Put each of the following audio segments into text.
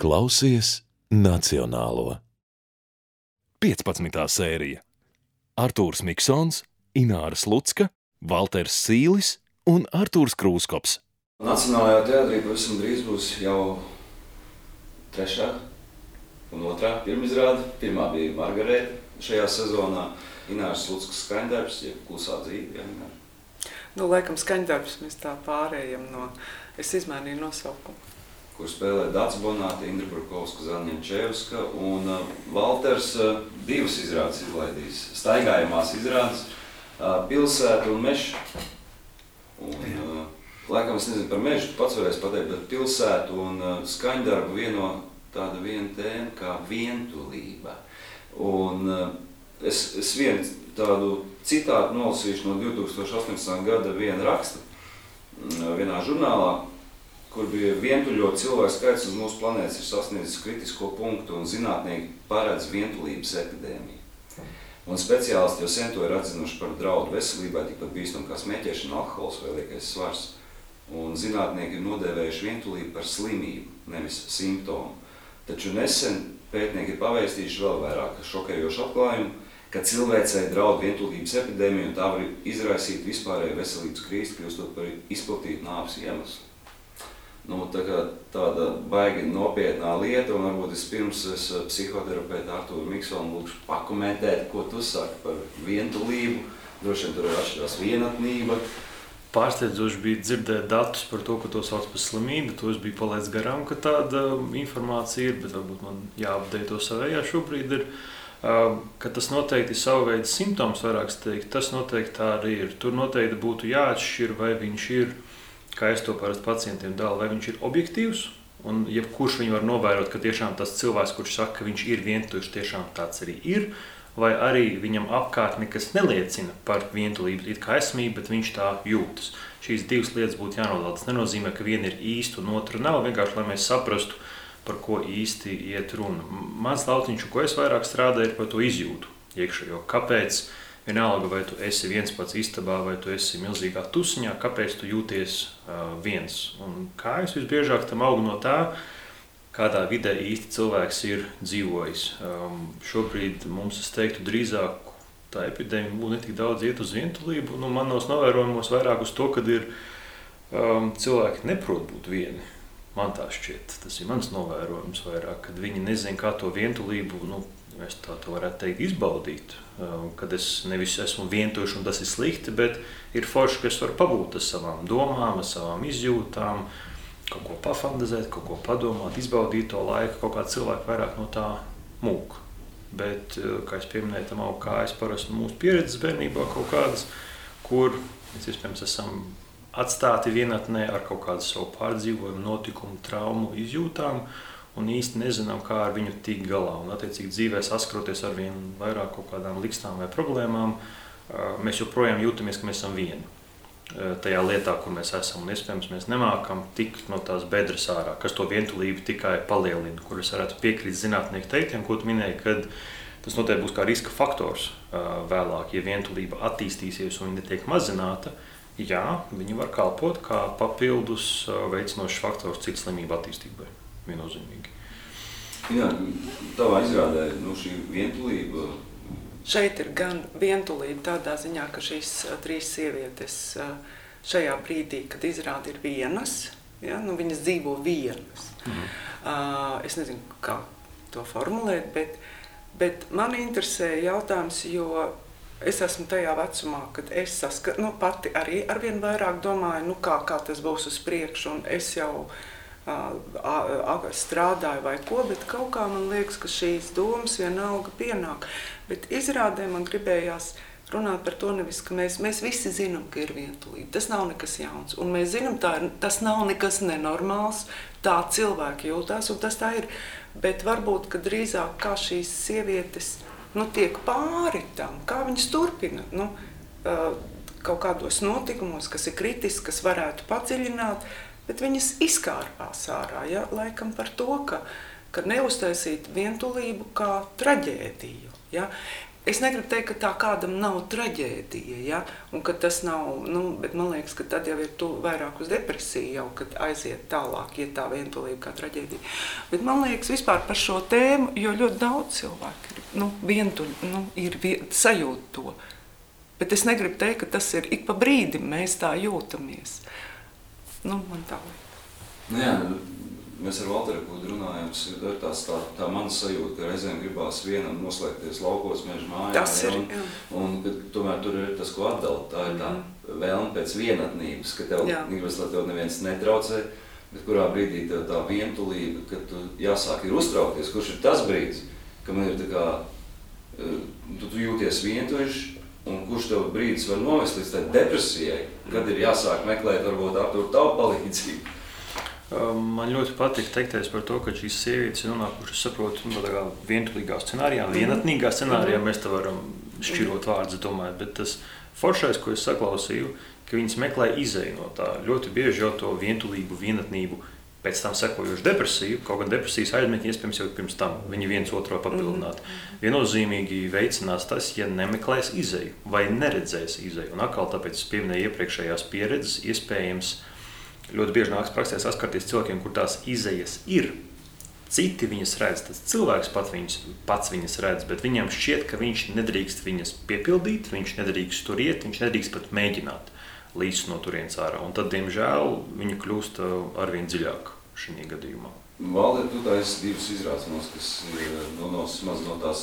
Klausies Nacionālo. 15. sērija. Artūrs Miksons, Ināra Slucka, Valters Sīlis un Artūrs Krūskops. Nacionālajā teātrī pavisam drīz būs jau 3. un 2. pirmizrāde. Pirmā bija Margarēta šajā sezonā. Ināras Sluckas skaņdarbs, jeb Klusā dzīve. Laikam skaņdarbs mēs tā pārējam no... Es izmainīju nosaukumu. Kur spēlē Dāca Bonāte, Indra Brukovska, Zaņņenčevska un Valters 2 izrādes izlaidīs. Staigājamās izrādes, Pilsēta un Meža. Laikam es nezinu par Mežu, tu pats varēsi pateikt, bet Pilsētu un skaņdarbu viena tēma kā vientulība. Un es vienu tādu citātu nolasīšu no 2018. gada viena raksta vienā žurnālā, kur bija vientuļot cilvēku skaits uz mūsu planētas ir sasniedzis kritisko punktu un zinātnieki paredz vientulības epidēmiju. Un speciālisti jau sen to ir atzinuši par draudu veselībai, tikpat bīstam kā smēķēšana, alkohols vai liekais svars. Un zinātnieki ir nodēvējuši vientulību par slimību, nevis simptomu. Taču nesen pētnieki ir pavēstījuši vēl vairāk šokējošu atklājumu, ka cilvēcei draud vientulības epidēmija un tā var izraisīt vispārēju veselības krīzi, kļūstot par izplatītu nāves iemeslu. Tāda baigi nopietnā lieta, un varbūt vispirms es psihoterapeitu Artūru Miksonu lūkšu pakomentēt, ko tu saki par vientulību. Droši vien tur ir atšķirās vienatnība. Pārsteidzoši bija dzirdēt datus par to, ka to sauc par slimību. To es biju palaidis garām, ka tāda informācija ir, bet varbūt man jāapdei to savējā šobrīd ir. Ka tas noteikti ir savu veidu simptoms, vairāks teikt, tas noteikti tā arī ir. Tur noteikti būtu jāatšķir, vai viņš ir, kā es to parasti pacientiem dalu, vai viņš ir objektīvs, un jebkurš viņu var novērot, ka tiešām tas cilvēks, kurš saka, ka viņš ir vientuļš, tiešām tāds arī ir, vai arī viņam apkārt nekas neliecina par vientulību, it kā esmību, bet viņš tā jūtas. Šīs divas lietas būtu jānodala. Tas nenozīmē, ka viena ir īsta un otra nav, vienkārši, lai mēs saprastu, par ko īsti iet runa. Mans lautiņš, ko es vairāk strādāju, ir par to izjūtu iekšējo. Kāpēc, vienalga, vai tu esi viens pats istabā, vai tu esi milzīgā tusiņā, kāpēc tu jūties viens? Un kā es visbiežāk tam augu no tā, kādā vidē īsti cilvēks ir dzīvojis. Šobrīd mums, es teiktu, drīzāk tā epidēmija būtu ne tik daudz iet uz vientulību. Manos novērojumos vairāk uz to, kad ir cilvēki neprot būt vieni. Man tā šķiet, tas ir mans novērojums vairāk, kad viņi nezin, kā to vientulību, mēs tā to varētu teikt, izbaudīt. Kad es nevis esmu vientuļš un tas ir slikti, bet ir forši, ka es varu pabūt ar savām domām, ar savām izjūtām, kaut ko pafantazēt, kaut ko padomāt, izbaudīt to laiku, kaut kā cilvēki vairāk no tā mūk. Bet, kā es pieminēju, tam aug kā es parasti mūsu pieredzes bērnībā kaut kādas, kur mēs iespējams esam atstāti vienatnē ar kaut kādu savu pārdzīvojumu, notikumu, traumu, izjūtām un īsti nezinām, kā ar viņu tikt galā. Un attiecīgi dzīvē saskaroties ar vien vairāk kaut kādām likstām vai problēmām, mēs joprojām jūtamies, ka mēs esam vieni tajā lietā, kur mēs esam. Un iespējams mēs nemākam tikt no tās bedres ārā, kas to vientulību tikai palielina, kur es varētu piekrīt zinātnieku teiktiem, ko tu minēji, kad tas noteikti būs kā riska faktors vēlāk, ja vientulība attīstīsies un viņa netiek mazināta. Jā, viņi var kalpot kā papildus veicinošs faktors citu slimību attīstībai, viennozīmīgi. Jā, tavā izrādē, šī vientulība... Šeit ir gan vientulība tādā ziņā, ka šīs 3 sievietes šajā brīdī, kad izrāda ir vienas, ja, viņas dzīvo vienas. Es nezinu, kā to formulēt, bet man interesē jautājums, jo es esmu tajā vecumā, kad es pati arī arvien vairāk domāju, kā tas būs uz priekšu, un es jau strādāju vai ko, bet kaut kā man liekas, ka šīs domas vienalga pienāk. Bet izrādē man gribējās runāt par to nevis, ka mēs visi zinām, ka ir vientulība. Tas nav nekas jauns, un mēs zinām, tas nav nekas nenormāls, tā cilvēki jūtās, un tas tā ir. Bet varbūt, ka drīzāk kā šīs sievietes tiek pāri tam, kā viņas turpina kaut kādos notikumos, kas ir kritiski, kas varētu padziļināt, bet viņas izkārpās ārā, ja? Laikam par to, ka neuztaisīt vientulību kā traģēdiju. Ja? Es negribu teikt, ka tā kādam nav traģēdija, ja? Un ka tas nav, bet man liekas, ka tad jau ir vairāk uz depresiju jau, kad aiziet tālāk, iet tā vientulība kā traģēdija. Bet man liekas vispār par šo tēmu, jo ļoti daudz cilvēku ir, vientuļi, sajūt to. Bet es negribu teikt, ka tas ir ik pa brīdim mēs tā jūtamies. Man tā lieta. Mēs ar Valteru Kudu runājam, tas ir tā mana sajūta, ka reizēm gribās vienam noslēgties laukos, meža mājā. Tas ir, un tomēr tur ir tas, ko atdala. Tā ir tā vēlme pēc vienatnības, ka tev gribas, lai tev neviens netraucē, bet kurā brīdī tev tā vientulība, ka tu jāsāk ir uztraukties, kurš ir tas brīdis, ka man ir tā kā, tu jūties vientuļš, un kurš tev brīdis var novest līdz tai depresijai, kad ir jāsāk meklēt varbūt Artūru tavu palīdzību. Man ļoti patīk teikties par to, ka šīs sievietes ir nonākušas, saprotu, tādā vientulīgā scenārijā, vienatnīgā scenārijā, mēs te varam šķirot vārdus, domāju, bet tas foršais, ko es saklausīju, ka viņas meklē izeju no tā. Ļoti bieži jau to vientulību, vienatnību, pēc tam sekojuši depresiju, kaut gan depresijas aizmetņi iespējams jau pirms tam, viņi viens otru papildināt. Viennozīmīgi veicinās tas, ja nemeklēs izeju vai neredzēs izeju. Un atkal tāpēc es pieminēju iepriekšējās pieredzes, iespējams, ļoti bieži nāks praksē saskarties cilvēkiem, kur tās izejas ir. Citi viņas redz, tas cilvēks pats viņas redz, bet viņam šķiet, ka viņš nedrīkst viņas piepildīt, viņš nedrīkst tur iet, viņš nedrīkst pat mēģināt līdz no turienes ārā. Un tad, diemžēl, viņa kļūst arvien dziļāk šajā gadījumā. Valde, tu taisi divas izrādes, kas no tās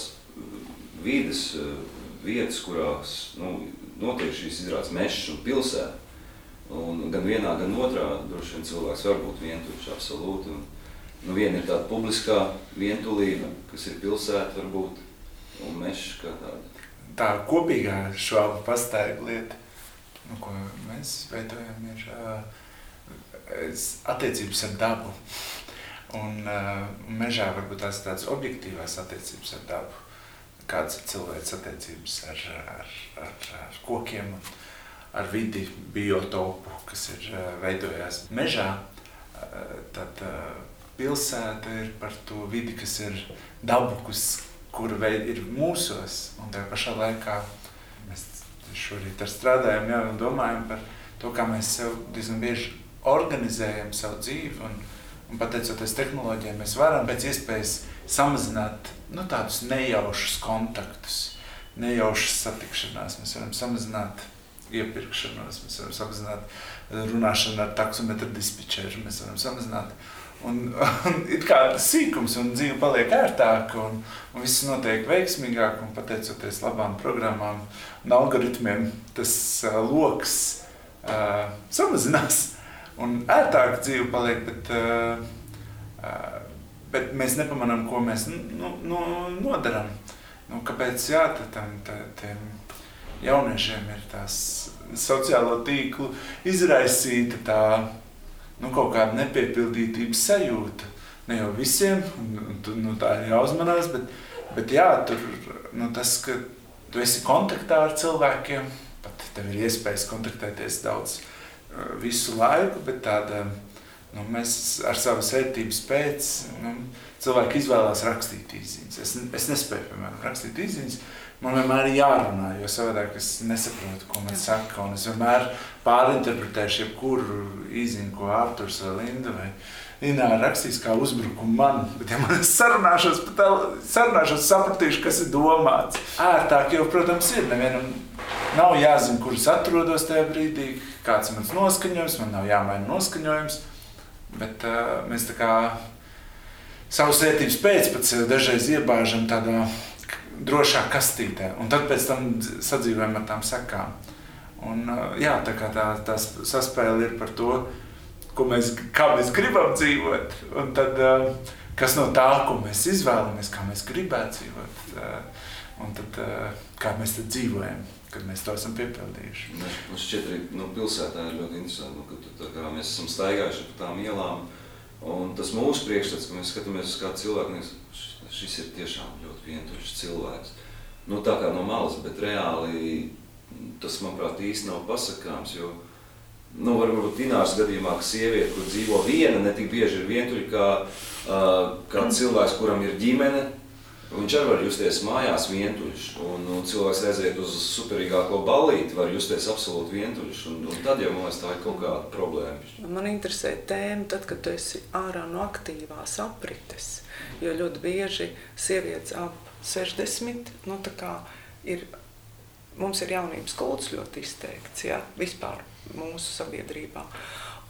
vides vietas, kurās notiek šīs izrādes mešas un pilsēta. Un gan vienā, gan otrā droši vien cilvēks var būt vientuļš, absolūti. Viena ir tāda publiskā vientulība, kas ir pilsēta varbūt, un mešs kā tāda. Tā kopīgā švāba pastaiga lieta, ko mēs veidojam, ir attiecības ar dabu. Un mežā varbūt tās tādas objektīvās attiecības ar dabu, kādas ir cilvēks attiecības ar kokiem, ar vidi, biotopu, kas ir veidojās mežā, tad pilsēta ir par to vidi, kas ir dabu, kura ir mūsos, un tajā pašā laikā mēs šorīt strādājam, un domājam par to, kā mēs sev diezgan bieži organizējam savu dzīvi, un pateicoties tehnoloģijai, mēs varam pēc iespējas samazināt tādus nejaušus kontaktus, nejaušas satikšanās, mēs varam samazināt iepirkšanos, mēs varam samazināt runāšanu ar taksometru dispečeru, mēs varam samazināt un ir kā sīkums, un dzīve paliek ērtāka, un viss notiek veiksmīgāk, un pateicoties labām programmām un algoritmiem, tas loks samazinās, un ērtāka dzīve paliek, bet mēs nepamanām, ko mēs nodaram. Kāpēc tiem jauniešiem ir tās sociālo tīklu izraisīta tā kaut kāda nepiepildītības sajūta. Ne jau visiem, tā ir jāuzmanās, bet jā, tur tas, ka tu esi kontaktā ar cilvēkiem, pat tev ir iespējas kontaktēties daudz visu laiku, bet tāda, mēs ar savas vērtības pēc, cilvēki izvēlās rakstīt īsziņas. Es nespēju, piemēram, rakstīt īsziņas. Man vienmēr ir jārunā, jo savādāk es nesaprotu, ko man saka, un es vienmēr pārinterpretēšu jebkuru īsziņu, ko Arturs vai Linda vai Ināra rakstīs kā uzbrukumu man, bet ja man sarunāšos, sapratīšu, kas ir domāts. Ērtāk jau, protams, ir, nevienam nav jāzina, kur es atrodos tajā brīdī, kāds ir mans noskaņojums, man nav jāmaina noskaņojums, bet mēs tā kā savas vērtības pēc pat sevi dažreiz iebāžam tādā drošā kastītē, un tad pēc tam sadzīvojam ar tām sekām. Un jā, tā kā tā saspēle ir par to, kā mēs gribam dzīvot, un tad kas no tā, ko mēs izvēlamies, kā mēs gribētu dzīvot, un tad kā mēs tad dzīvojam, kad mēs to esam piepildījuši. Man šķiet arī pilsētā ir ļoti interesanti, ka mēs esam staigājuši pa tām ielām, un tas mūsu priekšstats, ka mēs skatāmies uz kādu cilvēku, šis ir tiešām ļoti vientuļš cilvēks. Tā kā no malas, bet reāli tas, manuprāt, īsti nav pasakāms, jo varbūt Ināras gadījumā, ka sieviete, kur dzīvo viena, ne tik bieži ir vientuļa kā cilvēks, kuram ir ģimene, Viņš arī var justies mājās vientuļš, un cilvēks aiziet uz superīgāko ballīti, var justies absolūti vientuļš, un tad jau man liekas, tā ir kaut kāda problēma. Man interesē tēma tad, kad tu esi ārā no aktīvās aprites, jo ļoti bieži sievietes ap 60, mums ir jaunības kults ļoti izteikts, ja, vispār mūsu sabiedrībā.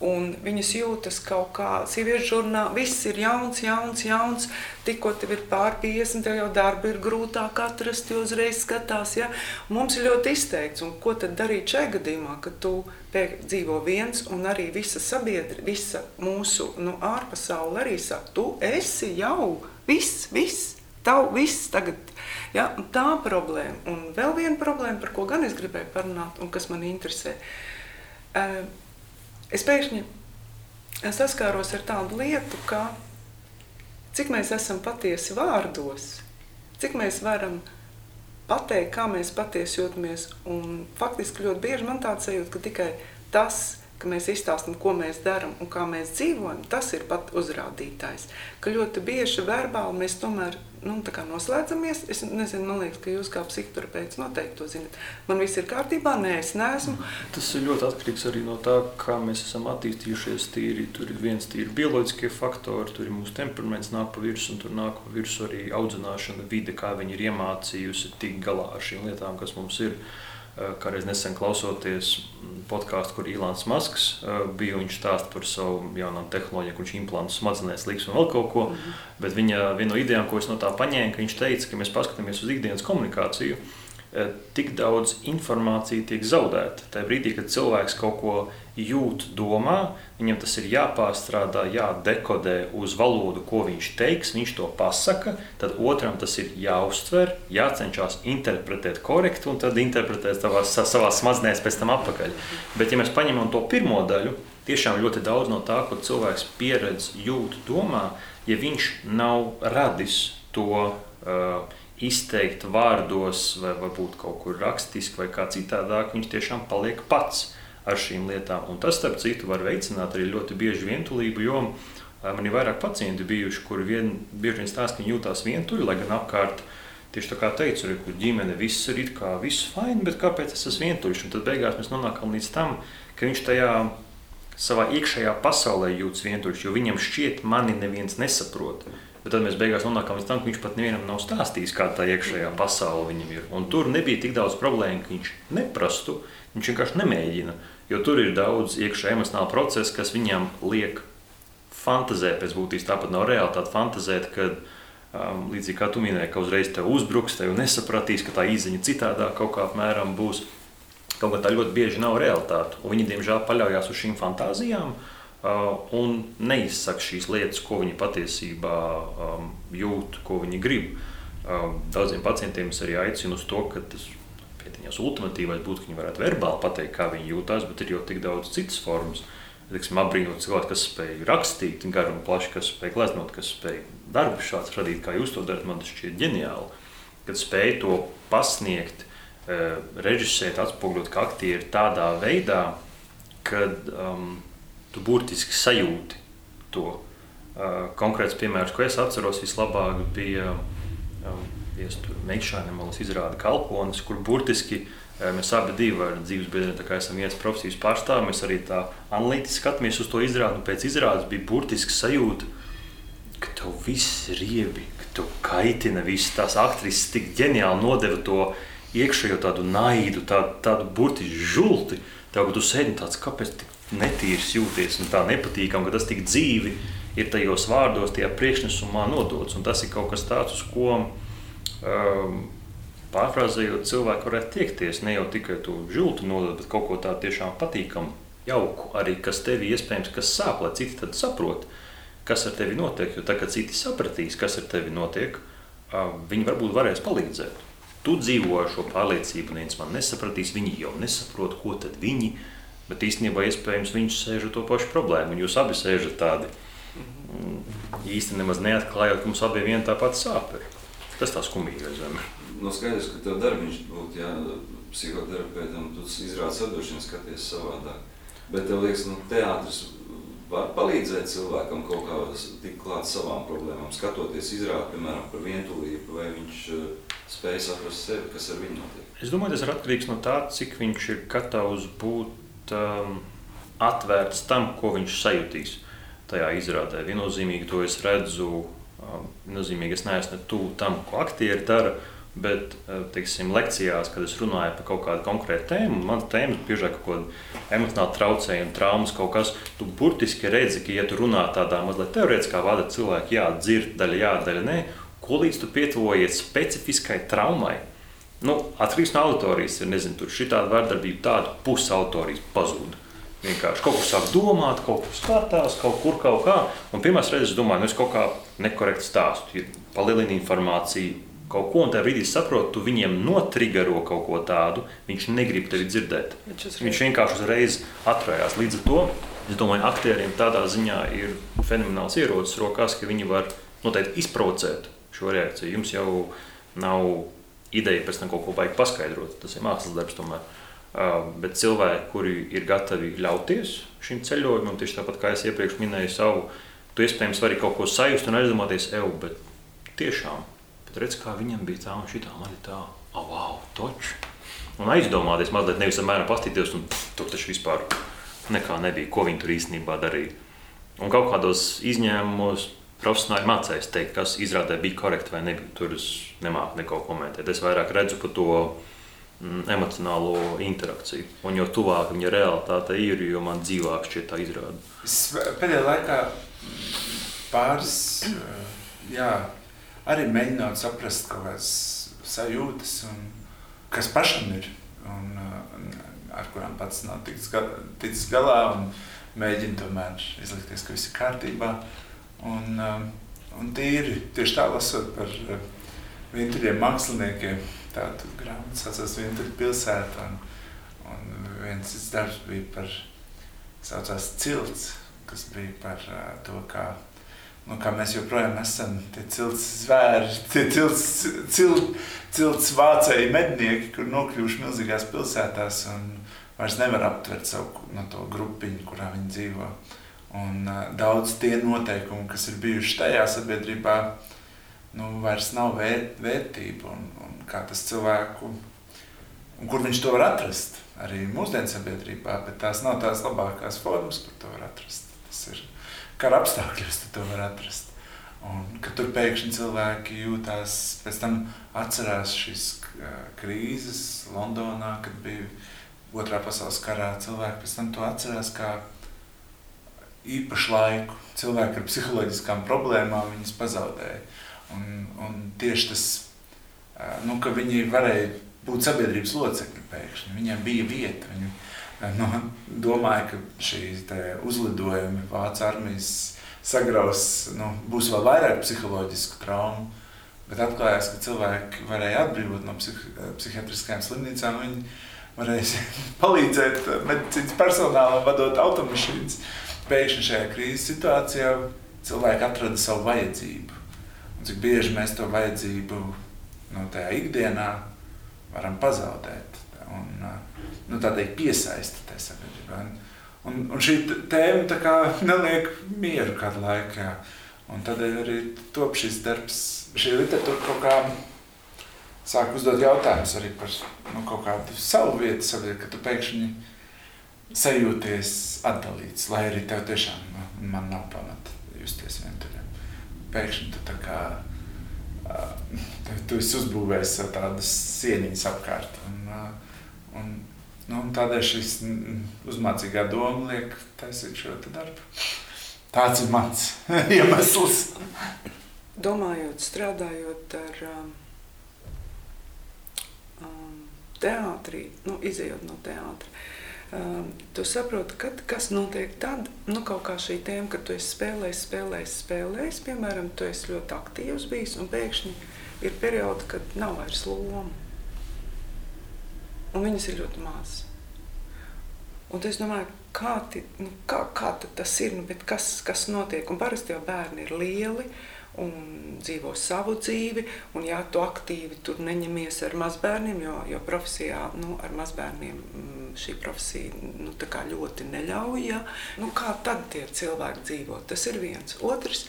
Un viņas jūtas kaut kā, sieviešu žurnāli, viss ir jauns, tikko tev ir pār 50, tev jau darba ir grūtāk atrast, jo uzreiz skatās, ja. Un mums ir ļoti izteikts, un ko tad darīt šajā gadījumā, kad tu dzīvo viens, un arī visa sabiedrība, visa mūsu ārpasaule arī saka, tu esi jau viss, tavu viss tagad, ja, un tā problēma. Un vēl viena problēma, par ko gan es gribēju parunāt, un kas man interesē. Es pēkšņi saskāros ar tādu lietu, ka cik mēs esam patiesi vārdos, cik mēs varam pateikt, kā mēs patiesi jūtamies. Un faktiski ļoti bieži man tāds sajūta, ka tikai tas, ka mēs izstāstam, ko mēs darām un kā mēs dzīvojam, tas ir pat uzrādītājs. Ka ļoti bieži verbāli mēs tomēr noslēdzamies. Es nezinu, man liekas, ka jūs kā psihoterapeits noteikti to zinat. Man viss ir kārtībā, nē, es neesmu. Tas ir ļoti atkarīgs arī no tā, kā mēs esam attīstījušies tīri. Tur ir viens tīri bioloģiskie faktori, tur ir mūsu temperaments nāk pa virsu, un tur nāk pa virsu arī audzināšana, vide, kā viņi ir iemācījusi tikt galā ar šīm lietām, kas mums ir. Kādreiz nesen klausoties podkāstu, kur Ilons Masks bija, viņš stāsta par savu jaunām tehnoloģiju, kur viņš implantē smadzenēs liks un vēl kaut ko. Bet viņa viena no idejām, ko es no tā paņēmu, ka viņš teica, ka mēs paskatāmies uz ikdienas komunikāciju, tik daudz informācija tiek zaudēta. Tajā brīdī, kad cilvēks kaut ko jūt, domā, viņam tas ir jāpārstrādā, jādekodē uz valodu, ko viņš teiks, viņš to pasaka, tad otram tas ir jāuztver, jācenšas interpretēt korekti un tad interpretēt savā smadzenēs pēc tam atpakaļ. Bet ja mēs paņemam to pirmo daļu, tiešām ļoti daudz no tā, ko cilvēks pieredz, jūt, domā, ja viņš nav radis to izteikt vārdos vai varbūt kaut kur rakstiski vai kā citādāk, viņš tiešām paliek pats ar šīm lietām. Un tas, starp citu, var veicināt arī ļoti bieži vientulību, jo man ir vairāk pacienti bijuši, kuri bieži vien stāsta, ka viņi jūtās vientuļi, lai gan apkārt, tieši tā kā teicu, kur ģimene viss ir it kā viss fine, bet kāpēc es esmu vientuļš? Un tad beigās mēs nonākam līdz tam, ka viņš tajā savā iekšējā pasaulē jūtas vientuļš, jo viņam šķiet, mani neviens nesaprot. Bet tad mēs beigās nonākam līdz tam, ka viņš pat nevienam nav stāstījis, kāda tā iekšējā pasaule viņam ir. Un tur nebija tik daudz problēmu, ka viņš neprastu, viņš vienkārši nemēģina. Jo tur ir daudz iekšējā emocionāla procesa, kas viņam liek fantazēt pēc būtības. Tāpat nav realitāte fantazēt, kad līdzīgi kā tu minēji, ka uzreiz tev uzbruks, tev nesapratīs, ka tā izziņa citādā kaut kā apmēram būs. Kaut kā tā ļoti bieži nav realitāte. Un viņi, diemžēl, paļaujās uz šīm fantāzijām, un neizsaka šīs lietas, ko viņi patiesībā jūt, ko viņi grib. Daudziem pacientiem es arī aicinu uz to, ka tas pietiņās ultimatīvais būtu, ka viņi varētu verbāli pateikt, kā viņi jūtās, bet ir jau tik daudz citas formas. Apbrīnot cilvēku, kas spēj rakstīt garu un plaši, kas spēj gleznot, kas spēj darbu šāds radīt, kā jūs to darat, man tas šķiet ģeniāli. Kad spēj to pasniegt, režisēt, atspoguļot kā aktieri tādā veidā, kad tu burtiski sajūti to. Konkrēts piemērs, ko es atceros vislabāk, bija Meikšāne malas izrāda Kalpones, kur burtiski mēs abi divi ar dzīves biedriem, tā kā esam viens profesijas pārstāvi, mēs arī tā analītiski skatāmies uz to izrādi, un pēc izrādes bija burtiski sajūta, ka tev viss riebi, ka tev kaitina viss, tās aktrises tik ģeniāli nodeva to iekšējo tādu naidu, tādu burtiski žulti, tev, ka tu sēdi tāds, kāpēc tik netīrs jūties un tā nepatīkam, ka tas tik dzīvi ir tajos vārdos, tajā priekšnesumā nodots. Un tas ir kaut kas tāds, uz ko pārfrāzējot cilvēku varētu tiekties. Ne jau tikai to žultu nodot, bet kaut ko tā tiešām patīkam, jauku arī, kas tevi iespējams, kas sāp, lai citi tad saprot, kas ar tevi notiek. Jo tā, kad citi sapratīs, kas ar tevi notiek, viņi varbūt varēs palīdzēt. Tu dzīvo ar šo pārliecību, neviens man nesapratīs, viņi jau nesaprot, ko tad viņi. Bet īstenībā iespējams viņš sēž ar to pašu problēmu, un jūs abi sēžat tādi īsti nemaz neatklājot, ka mums abiem viena tā pati sāp ir. Tas tā skumīgais. Skaidrs, ka tev darbiņš būtu, psihoterapeitam, tu izrādi sadošanu, skaties savādāk. Bet tev liekas, teātris var palīdzēt cilvēkam kaut kā tik klāt savām problēmām, skatoties izrādi, piemēram, par vientulību, vai viņš spēj saprast sevi, kas ar viņu notiek? Es domāju, tas ir atkarīgs no tā, cik viņš ir gatavs būt atvērts tam, ko viņš sajutīs tajā izrādē. Viennozīmīgi to es redzu, viennozīmīgi es neesmu tuvu tam, ko aktieri dara, bet, teiksim, lekcijās, kad es runāju par kaut kādu konkrētu tēmu, un man tēma biežāk kaut kāda emocionāli traucējuma, traumas kaut kas, tu burtiski redzi, ka, ja tu runā tādā mazliet teorētiskā vada cilvēki, jā, dzird daļa, jā, daļa, nē, ko līdz tu pietuvojies specifiskai traumai, atkarīgs no auditorijas, ir, nezinu, tur šitāda vārdarbība, tāda pusi auditorijas pazūda. Vienkārši kaut kur sāk domāt, kaut kur skatās, kaut kā, un pirmās reizes domāju, es kaut kā nekorekti stāstu, palielina informāciju, kaut ko, un tajā brīdī saprot, tu viņiem notrigero kaut ko tādu, viņš negrib tevi dzirdēt. Viņš vienkārši uzreiz atrājās. Līdz ar to, es domāju, aktieriem tādā ziņā ir fenomenāls ierocis rokās, ka viņi var noteikti izprovocēt šo reakciju. Jums jau nav ideja pēc tam kaut ko baigi paskaidrot, tas ir mākslas darbs tomēr. Bet cilvēki, kuri ir gatavi ļauties šim ceļojumam, tieši tāpat kā es iepriekš minēju savu, tu iespējams vari kaut ko sajust un aizdomāties, bet tiešām, redz, kā viņam bija tā un šitā, man ir tā, wow, toč. Un aizdomāties mazliet, nevis apmēram pastīties, un tur taču vispār nekā nebija, ko viņi tur īstenībā darīja. Un kaut kādos izņēmumos profesionāļi mācēs teikt, kas izrādē bija korekti vai nebija. Tur es nemāku neko komentēt. Es vairāk redzu par to emocionālo interakciju. Un jo tuvāk viņa realitāte ir, jo man dzīvāk šķiet tā izrāda. Es pēdējā laikā pāris, arī mēģināt saprast kaut kādas sajūtas, kas pašam ir, un ar kurām pats nav ticis galā, un mēģina tomēr izlikties, ka viss ir kārtībā. Un tieši tā lasot par vientuļiem māksliniekiem, tādu grāmatu saucās Vientuļu pilsēta, un viens darbs bija saucās Cilts, kas bija par to, kā mēs joprojām esam tie cilts zvēri, tie cilts vācēji mednieki, kur nokļuvuši milzīgās pilsētās un vairs nevar aptvert savu to grupiņu, kurā viņi dzīvo. Un daudz tie noteikumi, kas ir bijuši tajā sabiedrībā, vairs nav vērtība un kā tas cilvēku, un kur viņš to var atrast, arī mūsdienu sabiedrībā, bet tās nav tās labākās formas, kur to var atrast. Tas ir kara apstākļos tu to var atrast. Un, kad tur pēkšņi cilvēki jūtās, pēc tam atcerās šīs krīzes Londonā, kad bija Otrā pasaules karā, cilvēki pēc tam to atcerās kā īpašu laiku. Cilvēki ar psiholoģiskām problēmām viņas pazaudēja. Un tieši tas, ka viņi varēja būt sabiedrības locekļi pēkšņi, viņiem bija vieta, viņi domāju, ka šī uzlidojumi Vācu armijas sagraus, būs vēl vairāk psiholoģisku traumu, bet atklājās, ka cilvēki varēja atbrīvot no psihiatriskajām slimnīcām, viņi varēja palīdzēt medicīnas personālam vadot automašīnas. Pēkšņi šajā krīzes situācijā cilvēki atrada savu vajadzību. Un cik bieži mēs to vajadzību tajā ikdienā varam pazaudēt. Un tādēļ piesaista tai sabiedrībā. Un šī tēma tā kā neliek mieru kādu laiku, jā. Un tādēļ arī top šis darbs, šī literatūra kaut kā sāk uzdot jautājumus arī par kaut kādu savu vietu sabiedrībā, ka tu pēkšņi sajūties atdalīts, lai arī tev tiešām man nav pamata justies vientuļam. Pēkšņi tu tā kā, tu esi uzbūvējis sev tādas sieniņas apkārt. Un tādēļ šis uzmācīgā doma liek taisīt šo darbu. Tāds ir mans iemesls. Domājot, strādājot ar teātrī, izejot no teātra, tu saproti, kas notiek tad, kaut kā šī tēma, kad tu esi spēlējis, piemēram, tu esi ļoti aktīvs bijis, un pēkšņi ir periodi, kad nav vairs loma. Un viņas ir ļoti maz. Un es domāju, kā tad tas ir, bet kas notiek? Un parasti jau bērni ir lieli, un dzīvo savu dzīvi, un ja tu aktīvi tur neņemies ar mazbērniem, jo profesijā, ar mazbērniem šī profesija, tā kā ļoti neļauj, ja? Kā tad tie cilvēki dzīvo? Tas ir viens. Otrs,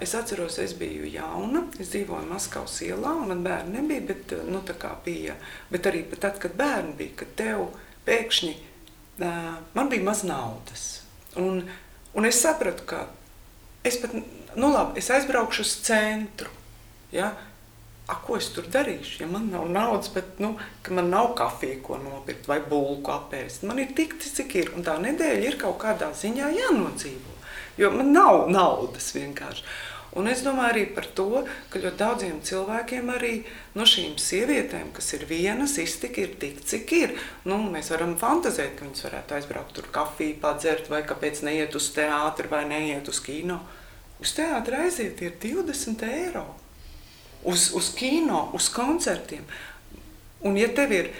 es atceros, es biju jauna, es dzīvoju Maskavas ielā, un man bērni nebija, bet, tā kā bija, bet arī tad, kad bērni bija, kad tev pēkšņi, man bija maz naudas, un es sapratu, ka es pat, labi, es aizbraukšu uz centru, ja? Ko es tur darīšu, ja man nav naudas, bet, ka man nav kafija, ko nopirkt, vai bulku apēst. Man ir tik, cik ir, un tā nedēļa ir kaut kādā ziņā jānodzīvo, jo man nav naudas vienkārši. Un es domāju arī par to, ka ļoti daudziem cilvēkiem arī no šīm sievietēm, kas ir vienas, iztika ir tik, cik ir. Mēs varam fantazēt, ka viņas varētu aizbraukt tur kafiju padzert, vai kāpēc neiet uz teātri, vai neiet uz kino. Uz teātri aiziet ir 20 eiro. Uz kino, uz koncertiem. Un ja tev ir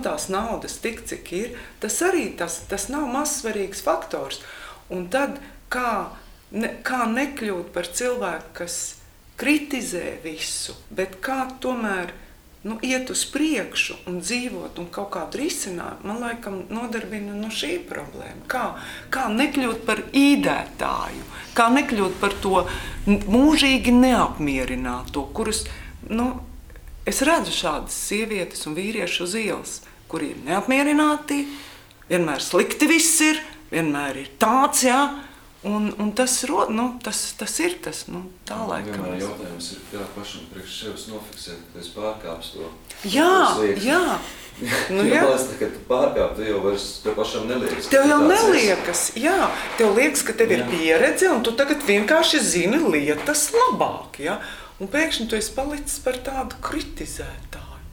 tās naudas tik, cik ir, tas arī tas nav mazsvarīgs faktors. Un tad kā nekļūt par cilvēku, kas kritizē visu, bet kā tomēr iet uz priekšu un dzīvot un kaut kādu risinājumu, man laikam nodarbina šī problēma. Kā nekļūt par īdētāju, kā nekļūt par to mūžīgi neapmierināto, kurus, es redzu šādas sievietes un vīrieši uz ielas, kuri ir neapmierināti, vienmēr slikti viss ir, vienmēr ir tāds, jā, un tas ir tas, tā laikam. Vienmēr jautājums ir, pašam priekš sevis nofiksēt, ka es pārkāpstu to. Jā. Kad tu pārkāp, tu jau vairs tev pašam neliekas. Tev jau neliekas, jā. Tev liekas, ka tev ir pieredze, un tu tagad vienkārši zini lietas labāk, jā. Un pēkšņi tu esi palicis par tādu kritizētāju.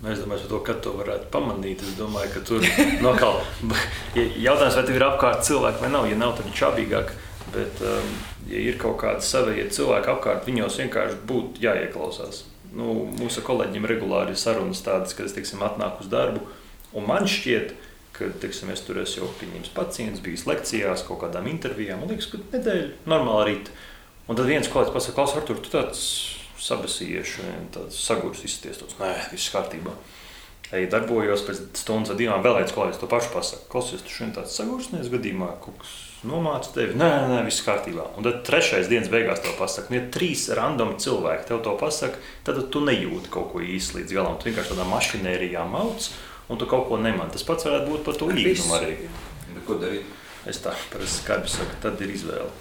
Es domāju, to, kad to varētu pamanīt. Es domāju, ka tur jautājums, vai tev ir apkārt cilvēki vai nav. Ja nav, tad ir čābīgāk. Bet, ja ir kaut kādi savējie cilvēki apkārt, viņos vienkārši būtu jāieklausās. Mūsu kolēģiem regulāri ir sarunas tādas, kad es, atnāku uz darbu. Un man šķiet, ka, es tur esmu jau pieņems pacients, bijis lekcijās, kaut kādām intervijām. Man liekas, ka nedēļa normāli rīt. Un tad viens kolēģis pasaka, Klaus, Artur, tu tāds sabesījies, tāds sagurs izsties, nē, viss kārtībā. Darbojos pēc stundas vai 2, vēl viens kolēģis to pašu pasaka. Klausies, tu šodien tāds sagursnies gadījumā, kaut kas nomāca tevi? Nē, viss kārtībā. Un tad 3. dienas beigās tev pasaka, ja 3 randomi cilvēki tev to pasaka, tad tu nejūti kaut ko īsti līdz galam. Tu vienkārši tādā mašinērijā mauc, un tu kaut ko nemani. Tas pats varētu būt par to īgumu arī. Bet ko darīt? Es tā parasti skarbi saku, tad ir izvēle.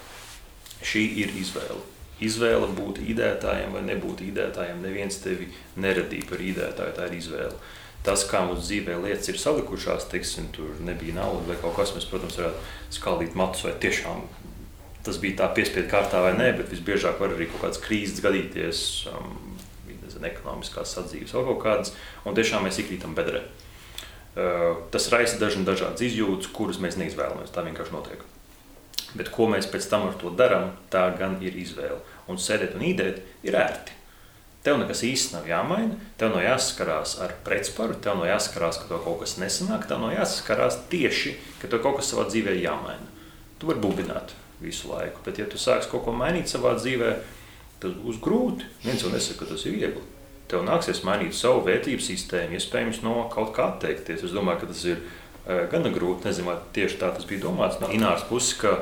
Šī ir izvēle. Izvēle būt īdētājiem vai nebūt īdētājiem. Neviens tevi neradīja par īdētāju, tā ir izvēle. Tas, kā mums dzīvē lietas ir salikušās, tur nebija nauda vai kaut kas, mēs, protams, varētu skaldīt matus vai tiešām tas bija tā piespiedu kārtā vai nē, bet visbiežāk var arī kaut kādas krīzes gadīties, ekonomiskās sadzīves vai kaut kādas, un tiešām mēs iekrītam bedrē. Tas raisa dažādas izjūtas, kuras mēs neizvēlamies, tā vienkārši notiek. Bet ko mēs pēc tam ar to darām, tā gan ir izvēle. Un sēdēt un īdēt ir ērti. Tev nekas īsti nav jāmaina, tev nav jāsaskarās ar pretsparu, tev nav jāsaskarās, ka tev kaut kas nesanāk, tev nav jāsaskarās tieši, ka tev kaut kas savā dzīvē jāmaina. Tu vari bubināt visu laiku, bet ja tu sāksi kaut ko mainīt savā dzīvē, tad būs grūti. Viens jau nesaka, ka tas ir viegli. Tev nāksies mainīt savu vērtību sistēmu, iespējams no kaut kā atteikties. Es domāju, ka tas ir gana grūti, nezinu, vai tieši tā tas bija domāts no Ināras puses, ka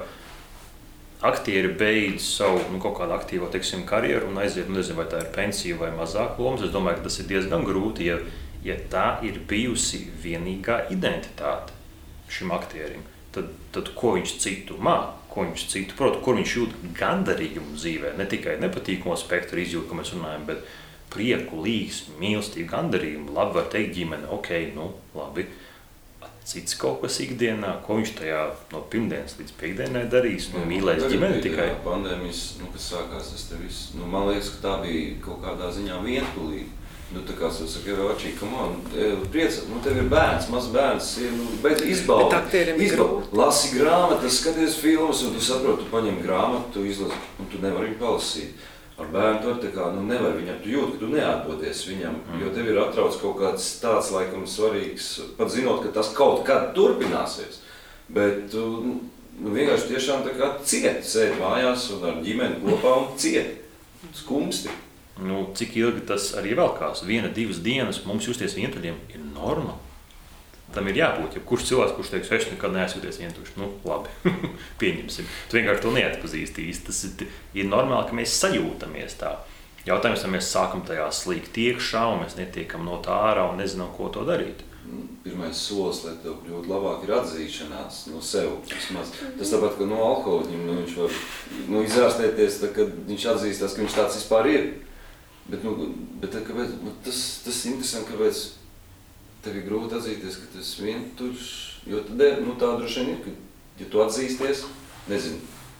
aktieri beidz savu kaut kādu aktīvo karjeru un aiziet, nezinu, vai tā ir pensija vai mazāk lomas. Es domāju, ka tas ir diezgan grūti, ja tā ir bijusi vienīgā identitāte šim aktierim. Tad ko viņš citu māk, ko viņš citu prot, kur viņš jūt gandarījumu dzīvē, ne tikai nepatīkamo spektru izjūt, ko mēs runājam, bet prieku, līgsmi, mīlestību, gandarījumu, labi var teikt ģimene, labi. Cits kaut kas ikdienā, ko viņš tajā no pirmdienas līdz piekdienai darīs, mīlēs ģimeni tikai. Pandēmijas, kas sākās, tas te viss, man liekas, ka tā bija kaut kādā ziņā vientulīga. Tā kā es saku, Račī, come on, priecāt, tev ir bērns, mazs bērns, bet izbaudi, lasi grāmatas, skaties filmas, un tu saproti, tu paņem grāmatu, tu izlasi, un tu nevari viņu palasīt. Ar bērnu tu tā kā, nevar viņam, tu jūti, ka tu neatdodies viņam, jo tev ir atrauc kaut kāds tāds, laikam, svarīgs, pat zinot, ka tas kaut kad turpināsies. Bet vienkārši tiešām tā kā ciet, sēd mājās un ar ģimeni kopā un ciet, skumsti. Cik ilgi tas arī velkās? 1-2 dienas mums justies vientuļiem ir norma. Tam ir jābūt, ja kurš cilvēks, kurš teiks, es nekad neesūties vientuļš. Labi, pieņemsim. Tu vienkārši to neatpazīsti īsti. Tas ir normāli, ka mēs sajūtamies tā. Jautājums, vai mēs sākam tajā slīgt iekšā un mēs netiekam no tā ārā un nezinām, ko to darīt. Pirmais solis, lai tev kļūt labāk, ir atzīšanās no sev. Tas tāpat, ka no alkohoļiem viņš var izārstēties, kad viņš atzīstās, ka viņš tāds vispār ir. Bet kāpēc, tas interesanti, kāpēc tev ir grūti atzīties, ka tu esi vientuļš, jo tā droši vien ir, ka, ja tu atzīsties, nezinu,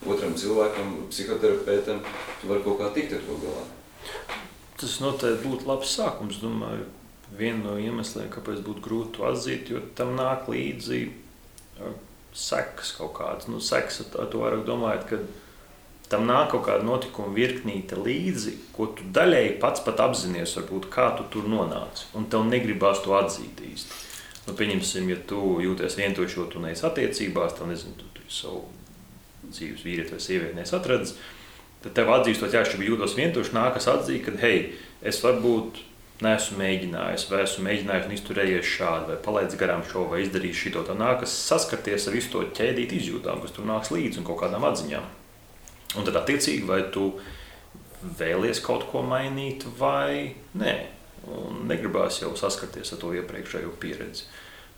otram cilvēkam, psihoterapeitam, tu vari kaut kā tikt ar to galā. Tas noteikti būtu labs sākums, domāju. Viena no iemesliem, kāpēc būtu grūti to atzīt, jo tam nāk līdzi sekas kaut kādas. Sekas ar to vairāk domājot, ka tam nāk kaut kāda notikuma virknīte līdzi, ko tu daļēji pats pat apzinies, varbūt, kā tu tur nonāci, un tev negribās to atzīt īsti. Pieņemsim, ja tu jūties vientuļš, jo tu neesi attiecībās, tev nezinu, tu savu dzīves vīrieti vai sievieti neesi atradis, tad tev atzīstot, ja es jūtos vientuļš, nākas atzīt, ka, hei, es varbūt neesmu mēģinājis, vai esmu mēģinājis un izturējies šādi, vai palaidis garām šo, vai izdarījis šito, tad nākas saskarties ar visu to ķēdīt izjūtām, kas tur nāks līdzi un kaut kādām atziņām. Un tad attiecīgi, vai tu vēlies kaut ko mainīt vai nē. Un negribās jau saskarties ar to iepriekšējo pieredzi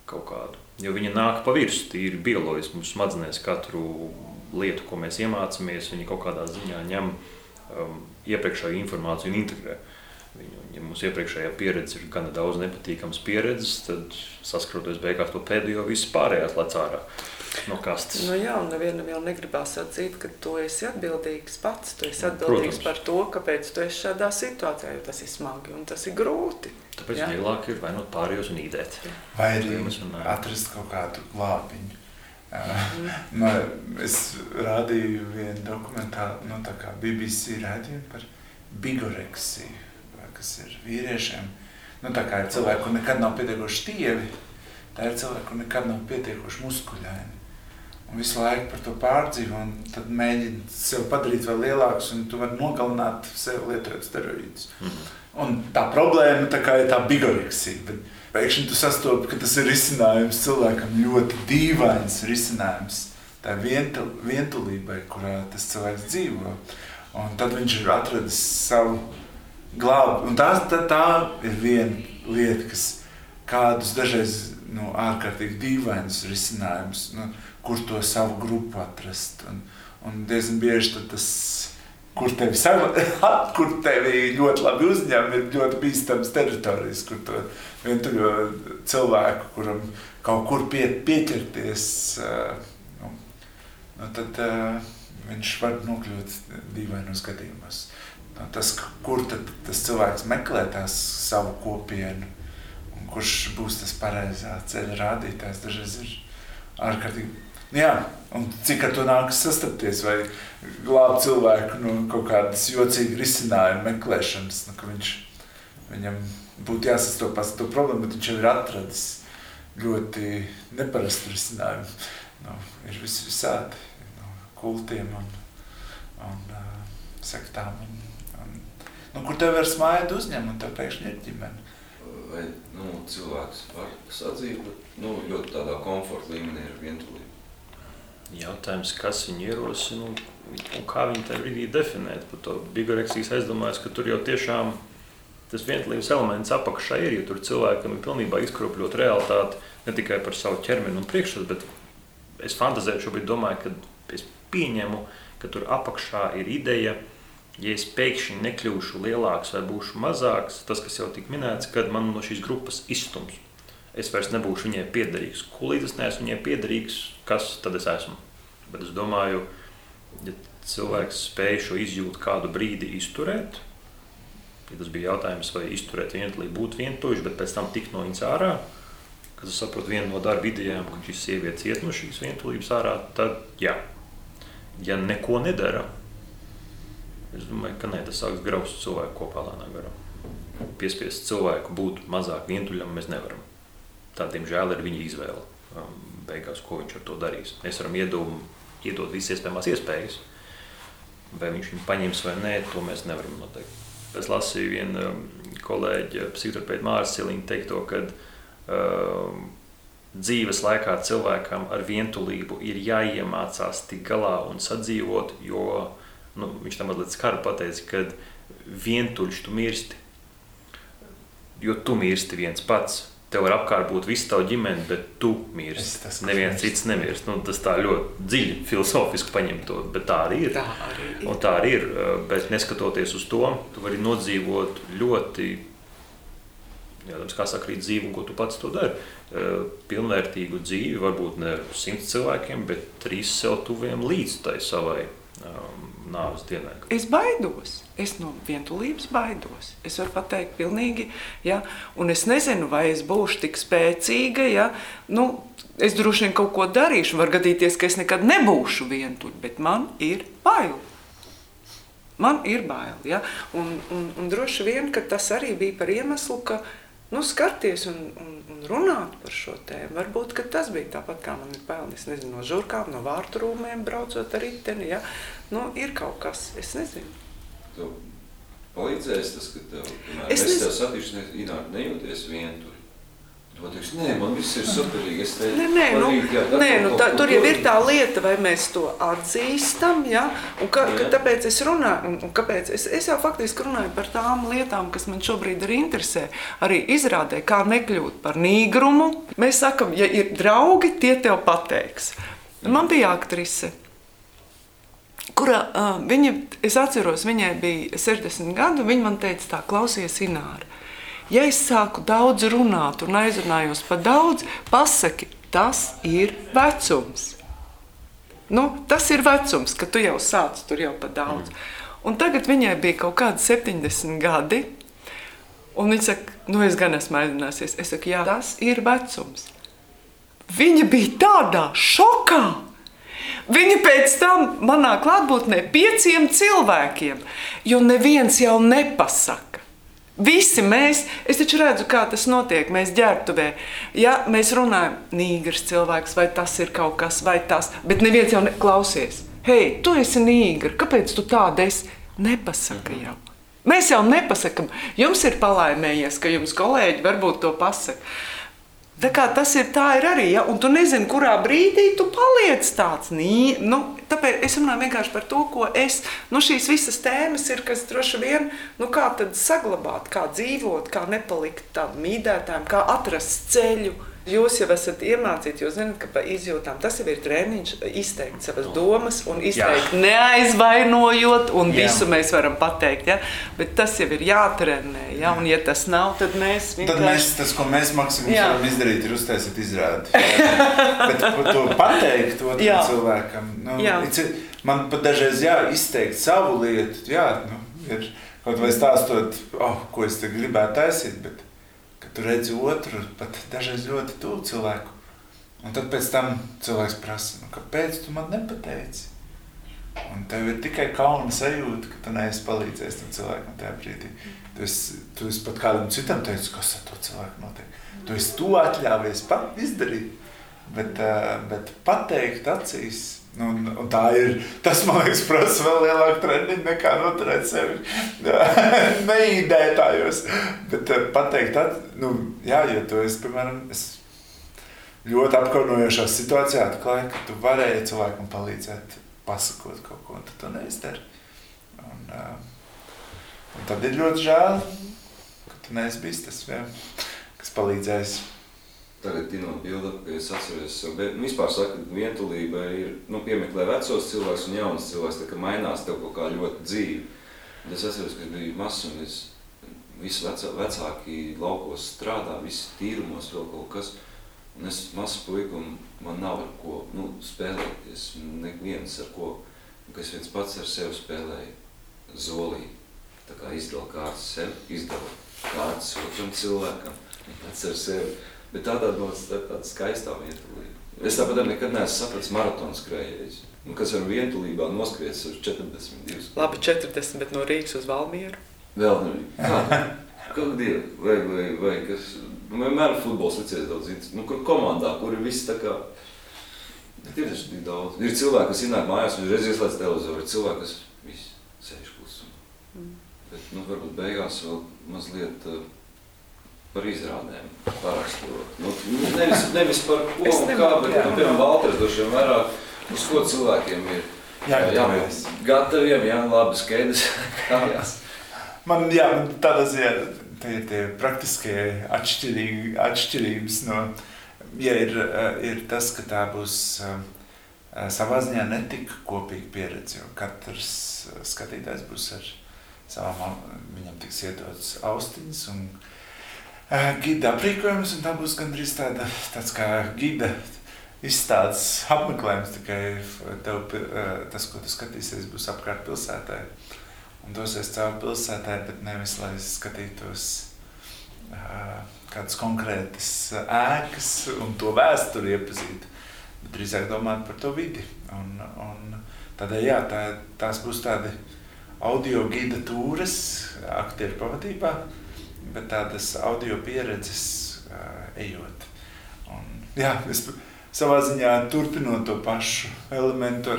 kaut kādu. Jo viņa nāk pa virsu, tīri bioloģiski mums smadzenēs katru lietu, ko mēs iemācāmies, viņa kaut kādā ziņā ņem iepriekšējo informāciju un integrē. Ja mums iepriekšējā pieredze ir gana daudz nepatīkams pieredzes, tad saskroties beigās to pēdējo viss pārējās lec ārā no kastes. Jā, un nevienam jau negribās atzīt, ka tu esi atbildīgs pats. Tu esi atbildīgs par to, kāpēc tu esi šādā situācijā, jo tas ir smagi un tas ir grūti. Tāpēc vieglāk ir vainot pārējos un īdēt. Vai arī atrast kaut kādu glābiņu. Es rādīju vienu dokumentālu, tā kā BBC rādījumu par bigoreksiju, kas ir vīriešiem. Tā kā ir cilvēki, kur nekad nav pietiekoši tievi, tā ir cilvēki, kur nekad nav pietiekoši muskuļaini. Un visu laiku par to pārdzīvo, un tad mēģina sev padarīt vēl lielākus, un tu vari nogalināt sev lietojot steroīdus. Un tā problēma tā kā ir tā bigoreksija, bet pēkšņi tu sastopi, ka tas ir risinājums cilvēkam ļoti dīvains risinājums. Tā ir vientulībai, kurā tas cilvēks dzīvo. Un tad viņš ir atradis savu glābu. Un tā ir viena lieta, kas kādus dažreiz ārkārtīgi dīvainus risinājumus, kur to savu grupu atrast. Un diezgan bieži tad tas, kur tevi ļoti labi uzņem, ir ļoti bīstams teritorijas, kur to vientuļo cilvēku, kuram kaut kur pieķerties, tad viņš var nokļūt dīvainos gadījumos. Tas, kur tad tas cilvēks meklē tās savu kopienu, un kurš būs tas pareizā ceļa rādītājs, dažreiz ir ārkārtīgi. Un cik ar to nākas sastapties, vai glābt cilvēku no kaut kādas jocīgas risinājuma meklēšanas, ka viņam būtu jāsastopas to problēmu, bet viņš jau ir atradis ļoti neparastu risinājumu. Ir visādi, kultiem un sektām, kur tev var smājot uzņem, un tev pēkšņi ir ģimene. Vai cilvēks var sadzīt, bet ļoti tādā komforta līmenī ir vientulība? Jautājums, kas viņu ierosina un kā viņi tajā brīdī definēt. Par to bigoreksijas aizdomājas, ka tur jau tiešām tas vientulības elements apakšā ir, jo tur cilvēkam ir pilnībā izkropļot realitāti ne tikai par savu ķermeni un priekšstatu, bet es fantazēju šobrīd domāju, ka es pieņemu, ka tur apakšā ir ideja, ja es pēkšņi nekļūšu lielāks vai būšu mazāks, tas, kas jau tik minēts, kad man no šīs grupas izstums. Es vairs nebūšu viņai piederīgs. Līdz es neesmu viņai piederīgs, kas tad es esmu? Bet es domāju, ja cilvēks spēj šo izjūtu kādu brīdi izturēt, ja tas bija jautājums, vai izturēt vientulību, būt vientuļš, bet pēc tam tikt no viņas ārā, kad es saprotu vienu no darba idejām, ka šis sievietes iet no šīs vientulības ārā, tad jā. Ja neko nedara, es domāju, ka tas sāks graust cilvēku kopā lēnā garā. Piespiest cilvēku būt mazāk vientuļam mēs nevaram. Tā, diemžēl, ir viņa izvēle. Beigās, ko viņš ar to darīs. Mēs varam iedomāt iedod visas iespējamās iespējas. Vai viņš viņu paņems vai nē, to mēs nevaram noteikt. Es lasīju vienu kolēģi, psihoterapeita Māris Ciliņa teikto, ka dzīves laikā cilvēkam ar vientulību ir jāiemācās tik galā un sadzīvot, jo viņš tam mazliet skaru pateica, ka vientuļš tu mirsti, jo tu mirsti viens pats. Tev var apkārt būt visu tavu ģimeni, bet tu mirsti. Neviens cits nemirst. Tas tā ļoti dziļi filozofiski paņem to, bet tā arī ir. Un tā arī ir, bet neskatoties uz to, tu vari nodzīvot ļoti, kā saka, arī dzīvi, un ko tu pats to dari. Pilnvērtīgu dzīvi, varbūt ne 100 cilvēkiem, bet 3 sev tuviem līdz tai savai nāves dienai. Es baidos. Es no vientulības baidos. Es varu pateikt pilnīgi, ja, un es nezinu, vai es būšu tik spēcīga, ja, es droši vien kaut ko darīšu, var gadīties, ka es nekad nebūšu vientuļa, bet man ir bail. Man ir bail, ja, un droši vien, ka tas arī bija par iemeslu, ka, skarties un runāt par šo tēmu. Varbūt, ka tas bija tāpat, kā man ir bail, es nezinu, no žurkām, no vārtu rūmēm braucot ar riteni, ja, ir kaut kas, es nezinu. Tev palīdzēs tas, ka es tev satīšu, Ināra, nejūties vientuļi. Tu teiks, nē, man viss ir superīgi. Tur jau ir tā lieta, vai mēs to atzīstam, ja? Un tāpēc es runāju, un kāpēc es jau faktiski runāju par tām lietām, kas man šobrīd arī interesē. Arī izrādē, kā nekļūt par nīgrumu. Mēs sakam, ja ir draugi, tie tev pateiks. Man bija aktrise, kurā es atceros, viņai bija 60 gadu, viņa man teica tā, klausies, Ināra, ja es sāku daudz runāt un aizrunājos par daudz, pasaki, tas ir vecums. Tas ir vecums, ka tu jau sāc tur jau par daudz. Un tagad viņai bija kaut kādi 70 gadi, un viņa saka, es gan esmu aizrunāsies. Es saku, jā, tas ir vecums. Viņa bija tādā šokā. Viņa pēc tam manā klātbūtnē 5 cilvēkiem, jo neviens jau nepasaka. Visi mēs, es taču redzu, kā tas notiek, mēs ģērbtuvē, ja mēs runājam, nīgrs cilvēks, vai tas ir kaut kas, vai tas, bet neviens jau klausies. Hei, tu esi nīgri, kāpēc tu tāda esi? Nepasaka jau. Mēs jau nepasakam, jums ir palaimējies, ka jums kolēģi varbūt to pasaka. Tā kā tas ir arī, ja? Un tu nezini, kurā brīdī tu paliec tāds. Tāpēc es runāju vienkārši par to, ko šīs visas tēmas ir, kas droši vien, kā tad saglabāt, kā dzīvot, kā nepalikt tādam mīdētājam, kā atrast ceļu. Jūs jau esat iemācīti, jūs zināt, ka pa izjūtām tas jau ir treniņš, izteikt savas domas un izteikt neaizvainojot, un visu mēs varam pateikt, ja? Bet tas jau ir jātrenē, ja? Un ja tas nav, tad mēs vienkārši... Tas, ko mēs maksimums varam izdarīt, ir uztaisīt izrādi. Bet to pateikt otram cilvēkam, man pat dažreiz izteikt savu lietu, ir kaut vai stāstot, ko es te gribētu taisīt, bet tu redzi otru, pat dažreiz ļoti tuvu cilvēku. Un tad pēc tam cilvēks prasa, kāpēc tu man nepateici? Un tev ir tikai kauna sajūta, ka tu neesi palīdzējis tam cilvēkam tajā brīdī. Tu esi pat kādam citam teicis, kas ar to cilvēku notiek. Tu esi to atļāvies pat izdarīt, bet pateikt acīs. Un tā ir, tas, man liekas, prasa vēl lielāku treniņu nekā noturēt sevi neīdētājos. Bet pateikt, jo tu esi, piemēram, ļoti apkaunojošā situācijā atklāji, ka tu varēji cilvēkam palīdzēt, pasakot kaut ko, un tu to neizdari. Un tad ir ļoti žēl, ka tu neesi bijis tas, kas palīdzējis. Tagad tinot bildi, ka es atceros sev, bet vispār saka, ka vientulība ir, piemeklē vecos cilvēks un jaunas cilvēks, tā kā mainās tev kaut kā ļoti dzīvi. Un es atceros, ka biju mazs un visi vecāki laukos strādā, visi tīrumos vēl kaut kas. Un es mazs puika un man nav ar ko spēlēties, neviens ar ko, ka es viens pats ar sevi spēlēju zolī. Tā kā izdala kārtas sev, izdala kārtas otram cilvēkam, pats ar sevi. Bet tāda skaistā vientulība. Es tāpat nekad neesmu sapratis maratonu skrējējus. Kas ar vientulībā noskries uz 42. Labi, 40, bet no Rīgas uz Valmieru? Vēl Kāda dieva? Vai kas? Vienmēr futbols licies daudz interesants. Kur komandā, kur ir viss tā kā Bet ir taču tik daudz. Ir cilvēki, kas ienāk mājās un reiz ieslēdz televizoru. Ir cilvēki, kas visi sēž klusumā. Bet, varbūt beigās vēl mazliet par izrādēm parakstot. Nevis par ko un kā, bet, piemēram, Valters droši vien vairāk, uz ko cilvēkiem ir jābūt gataviem, labi skaidrs kājās. Man tādā ziņā tie praktiskie atšķirības no, ir tas, ka tā būs savā ziņā netika kopīga pieredze, jo katrs skatītājs būs ar savām, viņam tiks iedots austiņas un gida aprīkojums, un tā būs gandrīz tāds kā gida izstādes apmeklējums, tikai tas, ko tu skatīsies, būs apkārt pilsētā. Un dosies caur pilsētā, bet nevis, lai skatītos kādas konkrētas ēkas un to vēsturi iepazītu, bet drīzāk domāt par to vidi. Un tādēļ, tās būs tādi audio gida tūres aktieru pavadībā, bet tādas audio pieredzes ejot. Un, es savā ziņā turpinot to pašu elementu,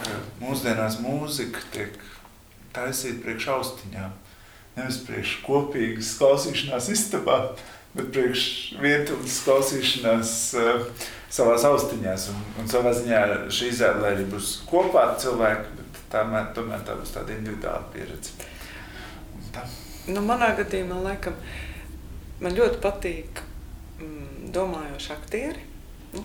ka mūsdienās mūzika tiek taisīt priekš austiņām. Nevis priekš kopīgas klausīšanās istabā, bet priekš vientuļas klausīšanās savās austiņās. Un savā ziņā šī izrāde arī būs kopā ar cilvēku, bet tomēr tā būs tāda individuāla pieredze. Manā gadījumā, laikam, man ļoti patīk domājoši aktieri,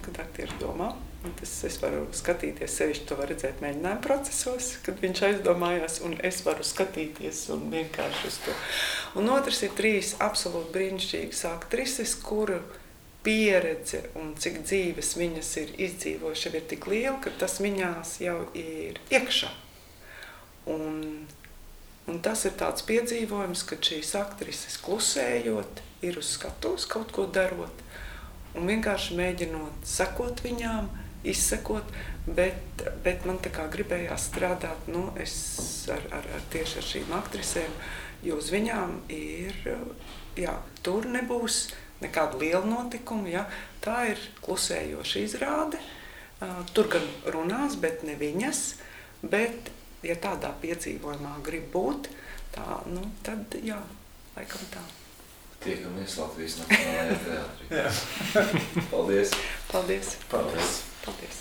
kad aktieri domā. Es varu skatīties sevišķi, to var redzēt mēģinājuma procesos, kad viņš aizdomājās, un es varu skatīties un vienkārši uz to. Un otrs ir 3 absolūti brīnišķīgas aktrises, kuru pieredze un cik dzīves viņas ir izdzīvojuši, ir tik liela, ka tas viņās jau ir iekšā. Un tas ir tāds piedzīvojums, kad šīs aktrises klusējot, ir uz skatuves kaut ko darot, un vienkārši mēģinot sekot viņām, izsekot, bet man tā kā gribējās strādāt tieši ar šīm aktrisēm, jo uz viņām ir, tur nebūs nekāda liela notikuma, tā ir klusējoša izrāde, tur gan runās, bet ne viņas, bet, ja tādā piedzīvojumā grib būt, tad, laikam tā. Tiekamies Latvijas Nacionālajā teātrī. Paldies! Paldies! Paldies! Paldies!